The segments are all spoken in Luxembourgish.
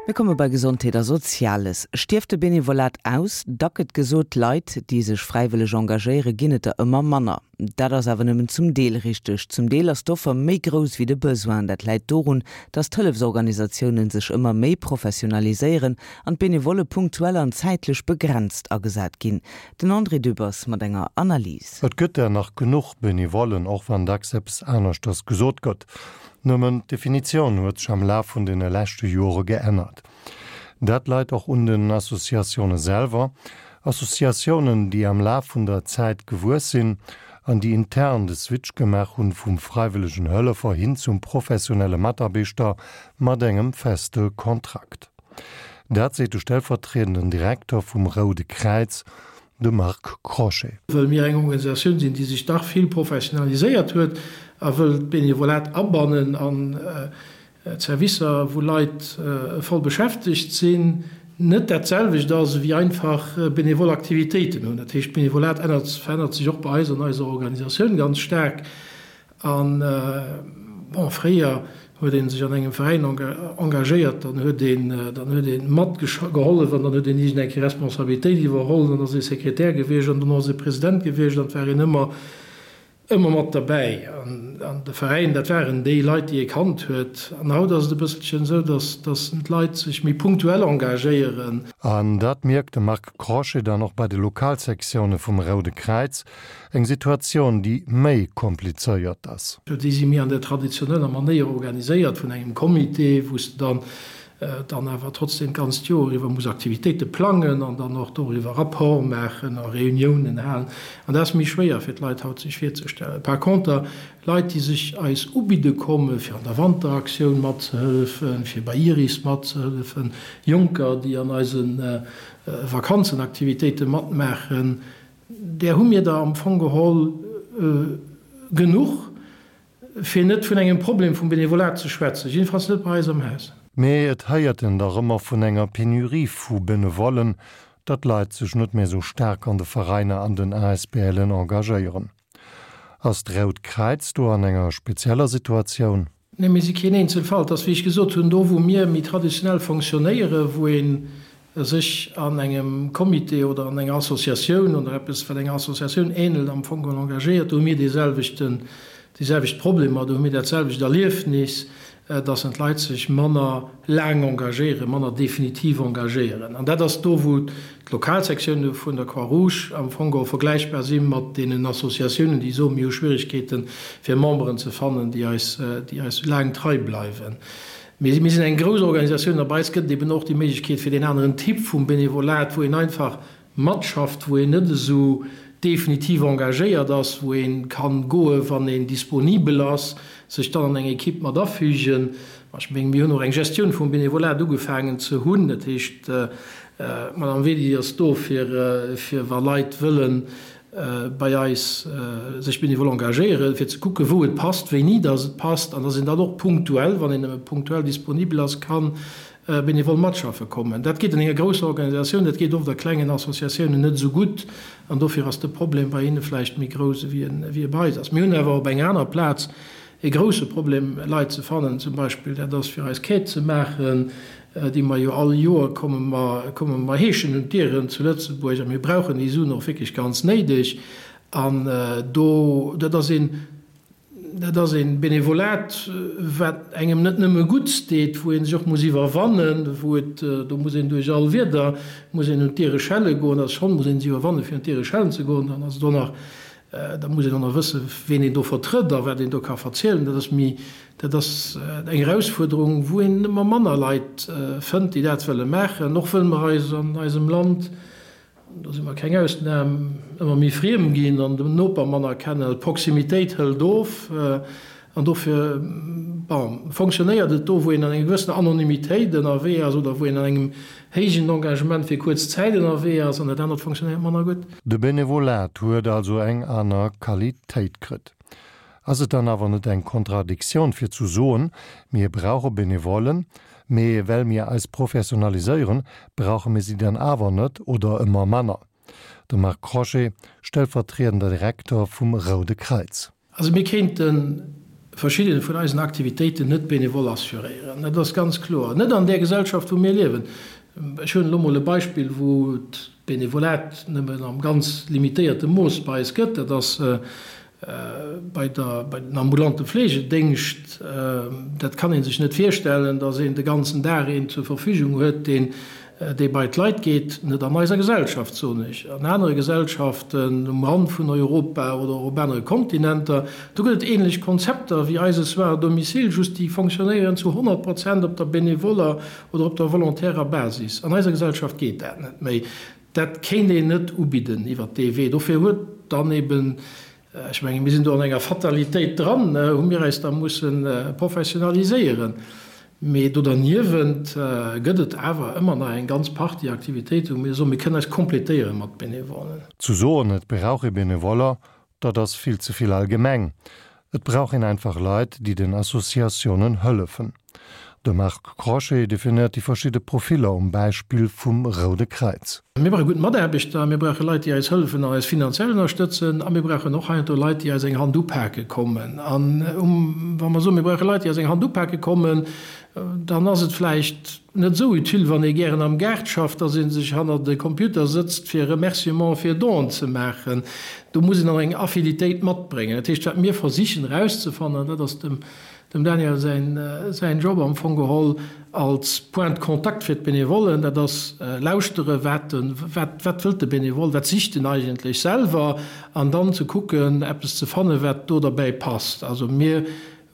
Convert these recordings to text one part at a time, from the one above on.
Mir komme bei Gesondheet a Soziales. Stierft de Benevolat aus? Da gëtt gesot, Leit, déi sech fräiwëlleg engagéieren, ginn et der ëmmer manner. Dat ass awer nëmmen zum Deel richteg. Zum Deel ass d'Offer méi grouss wéi de Besoin. Dat läit dorun, datt d'Hëllefsorganisatiounen sech ëmmer méi professionaliséieren an d'Benevolle punktuell an zäitlech begrenzt agesat ginn. Den André Dübbers mat enger Analys. Et gëtt der nach genuch Benevollen, och wann dacks eppes aneschters gesot gëtt. Nëmmen d'Definitioun huet sech am Laf vun deene leschte Jore geännert. Dat leit och un den Associatioune selwer, Associatiounen, déi am Laf vun der Zäit gewuess sinn an déi intern de Switch gemaach hunn vum freiwëllegen Hëllefer hin zum professionelle Mataarbechter mat engem feste Kontrakt. Dat seet de stellvertriedenden Direkter vum Roude Kräiz, De Marc Crochet. Wëll mir eng Organisatioun sinn, déi sech dach vill professionaliséiert huet a wëll d'Benevolat abannen an d'Servicer, wou Leit voll beschäftegt sinn, net dat selwecht ass ewéi einfach benevol Aktivitéiten hunn. Dat heescht, d'Benevolat ännert, verännert sech och bei eis an eiser Organisatioun ganz staark. An, bon, fréier huet ee sech an engem Veräin engagéiert, dann huet een, dann huet ee matgehollef an dann huet een iergend eng Kéier Responsabilitéit iwwerholl, dann ass ee Sekretär gewiescht an dono ass ee President gewiescht an et war een ëmmer, ëmmer mat derbäi. An de Veräin, dat waren déi Leit, déi ee kannt huet. An haut ass et e bësselchen esou, dass, dass d'Leit sech méi punktuell engagéieren. An dat mierkt de Marc Crochet dann och bei de Lokalsektioune vum Roude Kräiz, Eng Situatioun, déi méi komplizéiert ass. Déi si méi an der traditioneller Manéier organiséiert vun engem Comité, wou s de dann dann awer trotzdem d'ganzt Joer iwwer muss Aktivitéite plangen an dann och doriwwer Rapport maachen a Reuniounen halen. An dat ass méi schwéier fir d'Leit haut sech virzestellen. Par conter, Leit, déi sech eis ubidde komme fir an der Wanteraktioun matzehëllefen, fir bei Iris matzehëllefen, Jonker, déi an eise Vakanzenaktivitéite matmaachen, Där hu mir der am Fong geholl genuch, fir net vun engem Problem vum Benevolat ze schwätzen, jiddefalls net bei eis am Haus. Mee et héiert en dach ëmmer vun enger Penurie vu Benevollen, datt d'Leit sech net méi esou staark an de Veräiner an den ASBLen engagéieren. Ass d'Rout Kräiz do an enger spezieller Situatioun? Nee, mir si keen Eenzelfall. Et ass, wéi ech gesot hunn, do wou mir méi traditionell fonctionnéieren, wou ee sech an engem Comité oder an enger Associatioun oder eppes, wat enger Associatioun ähnelt, am Fong geholl engagéiert, do hu mir deeselwechten, déi selwecht Problemer, do hu mir dat selwecht Erliefnis, dass en d'Leit sech manner laang engagéieren, manner definitiv engagéieren. An dat ass do, wou d'Lokalsektioune vun der Croix-Rouge am Fong geholl vergläichbar si mat deenen Associatiounen, déi soen, mir hu Schwierigkeeten, fir Memberen ze fannen, déi eis, déi eis laang trei bleiwen. Mee mir sinn eng grouss Organisatioun a bei eis gëtt et eben och déi Méiglechkeet fir deen aneren Typ vum Benevolat, wou een einfach matschafft, wou een net esou definitiv engagéiert ass, wou ee kann goe wann een disponibel ass, sech dann an eng Equipe mat afügen. Ech mengen, mir hunn och eng Gestioun vum Benevolat ugefaangen ze hunn. Dat heescht, d'Madame Wedy ass do fir, fir wa Leit wëllen bei eis sech benevol engagéieren, fir ze kucken, wou et passt, wéini dass et passt, an dass een dann och punktuell, wann een nëmme punktuell disponibel ass, kann benevol matschaffe kommen. Dat geet an enger grousser Organisatioun, dat geet oft a klengen Associatiounen net esou gutt an dofir ass de Problem bei hinne vläicht méi grouss ewéi en ewéi e bei eis ass. Mir hunn awer op enger aner Plaz e grousse Problem Leit ze fannen, zum Beispill dat ass fir eis Quête ze maachen, déi mer jo all Joer komme mer komme mer heeschen un d'Dieren zu Lëtzebuerg a mir brauchen déi Suen och wierklech ganz néideg an do dat ass een Dat ass e Benevolat, wat engem net nëmme Gutts deet, wou ee sech och muss iwwerwannen, wou et, do muss een duerch all Wieder, muss een un d'Diere schelle goen, also schonn muss een sech iwwerwannen, fir un d'Diere schellen ze goen, dann ass et och nach, da muss een och nach wëssen, ween een do vertrëtt a wat een do ka verzielen. Dat ass méi, dat ass eng Erausfuerderung, wou een ëmmer manner Leit fënnt, déi dat wëlle maachen, och wëll mer eis an eisem Land, Do si mer keng Ausnam, ëmmer méi friem ginn an den Noper manner kennen. D'Proximitéit hëlt of an dofir, bon, fonctionnéiert et do, wou een an enger gewëssener Anonymitéit ënnerwee ass oder wou een an engem héijen Engagement fir kuerz Zäit ënnerwee ass an dat anert fonctionnéiert manner gutt. De Benevolat huet also eng aner Qualitéit kritt. Ass et dann awer net eng Kontradiktioun fir zu soen, mir brauche Benevollen, mee well mir eis professionaliséieren, brauche mir si dann awer net oder ëmmer manner? De Marc Crochet, stellvertriedender Direkter vum Roude Kräiz. Also mir kéinte. verschidde vun eisen Aktivitéiten net benevol assuréieren. Dat ass ganz kloer. Net an där Gesellschaft, wou mir liewen. Ech huelen elo mol e Beispill, wou d'Benevolat nëmmen am ganz limitéierte Mooss bei eis gëtt, dat ass bei der, bei den ambulante Fleegedéngscht. Dat kann ee sech net virstellen, datt een de ganzen Dag een zur Verfügung huet, deen, dee bei d'Leit geet. Net an eiser Gesellschaft, soen ech. An anere Gesellschaften um Rand vun Europa oder och op anere Kontinenter, do gëtt et ähnlech Konzepter wéi eise Soins à domicile, just déi fonctionnéieren zu 100 Prozent op der benevoller oder op der volontärer Basis. An eiser Gesellschaft geet dat net méi. Dat kéint een net ubidden iwwert dee Wee. Dofir huet dann eben, ech mengen, mir sinn do an enger Fatalitéit dran, hu mir eis da musse professionaliséieren. Mee do derniewent gëtt et awer ëmmer nach eng ganz Partie Aktivitéiten, wou mir soen, mir kënnen eis complétéiere mat Benevollen. Zu soen, et brauch ee Benevoller, Dat ass vill ze vill allgemeng. Et brauch een einfach Leit, déi den Associatiounen hëllefen. De Marc Crochet definéiert déi verschidde Profiller um Beispill vum Roude Kräiz. Mir brauche gutt Mataarbechter, mir brauche Leit, déi eis hëllefen an eis finanziell ënnerstëtzen a mir brauchen och heiansdo Leit, déi eis eng Hand upake kommen. An wa mer soen, mir brauche Leit, déi eis eng Hand upake kommen, dann ass et vläicht net esou utile, wann ee gären am Gaart schafft, dass ee sech hannert e Computer sëtzt, fir Remerciement fir Donen ze maachen. Do muss een dann eng Affinitéit matbréngen. Dat heescht, wat mir versichen erauszefannen, an dat ass dem Daniel säin Job am Fong geholl als Point de contact fir d'Benevollen, dat ass lauschtere wat wat wëllt de Benevole, wat sicht en eigentlech selwer, an dann ze kucken, eppes ze fannen, wat do derbäi passt. Also mir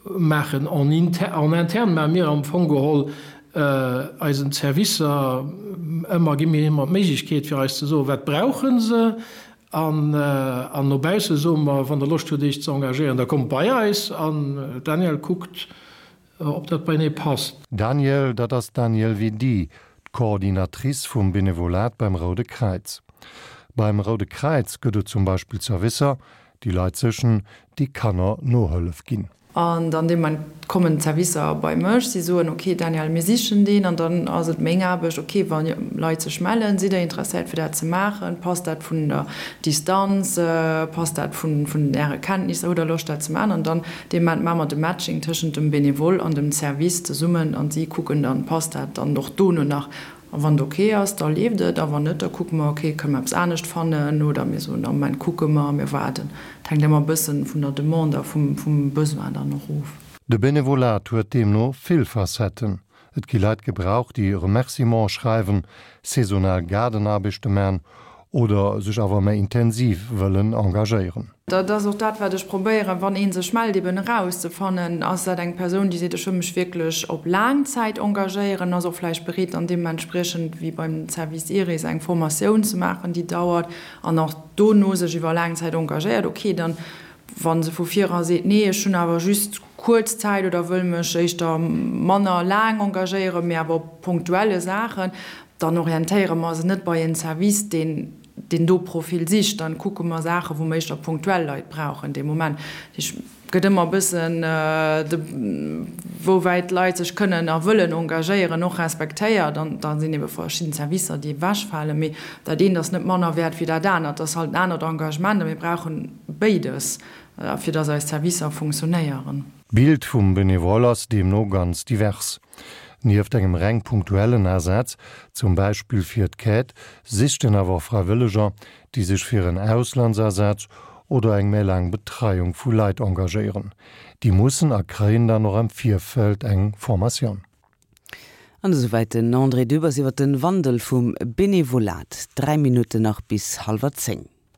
Maachen en en interne maache mir am Fong geholl eisen Servicer ëmmer, gi mir ëmmer d'Méiglechkeet fir eis ze soen, wat brauche se an an no bausse soe mer, wann der Loscht hutt iech ze engagéieren, da kommt bei eis an d'Danièle kuckt, ob dat beienee passt. Danièle, dat ass d'Danièle Vedi, d'Coordinatrice vum Benevolat beim Roude Kräiz. Beim Roude Kräiz gëtt et zum Beispill Servicer, Déi Leit séchen, déi Kanner Nohëllef ginn. An dann dee Moment kommen d'Servicer bei mech, si soen, ok Danièle, mir sichen deen. An dann ass et meng Aarbecht, ok wa Leit sech mellen, sidd der interesséiert fir dat ze maachen, passt dat vun der Distanz, passt dat vun äre Kenntnisser, hutt der Loscht dat ze maachen? An dann dee Moment maache mer de Matching tëschent dem Benevole an dem Service zesummen an si kucken dann, passt dat dann och dono nach. A wann et ok ass, da leeft et, a wann net, da kucke mer, ok, kënne mer eppes anescht fannen oder mir soen, am Moment kucke mer, mir waarden. Et hänkt ëmmer e bëssen vun der Demande a vum Besoin dann och of. De Benevolat huet deemno vill Facetten. Et gi Leit gebraucht, déi Remerciementen schreiwen, saisonal Gaardenaarbechte man oder sech awer méi intensiv wëllen engagéieren. Dat ass och dat, wat ech probéieren, wann ee sech mellt, eben erauszefannen, Ass dat eng Persoun, déi seet, ech wëll mech wierklech op laang Zäit engagéieren, ass och vläicht bereet, dann deementspriechend, wéi beim Service Iris, eng Formatioun ze maachen, déi dauert, an och dono sech iwwer laang Zäit engagéiert. Okay, dann, wa se vu vir era seet, nee, ech hunn awer just kuerz Zäit oder wëll mech éischter manner laang engagéieren, mee awer op punktuelle Saachen, Dann orientéiere mer se net bei en Service, deen deen do Profil sicht. Dann kucke mer Saachen, wou mer éischter punktuell Leit brauchen dee Moment. Dat heescht, et gëtt ëmmer e bëssen de wouwäit d'Leit sech kënnen a wëllen engagéieren och respektéiert. An da sinn ebe verschidden Servicer, déi ewechfalen. Mee dat eent ass net manner wäert wéi dat anert. Dat ass halt en anert Engagement a mir brauche béides, fir dass eis Servicer funktionéieren. D'Bild vum Benevole ass deemno ganz divers. Nieft engem reng punktuellen Asaz, zum Beispill fir d'Quête, sicht en awer och Fräiwëlleger, déi sech fir en Auslandsasaz oder eng méi laang Betreiung vu Leit engagéieren. Déi mussen a kréien dann och am Virfeld eng Formatioun. An esouwäit den André Dübbers iwwer den Wandel vum Benevolat. 3 Minutten nach bis hallwer 10.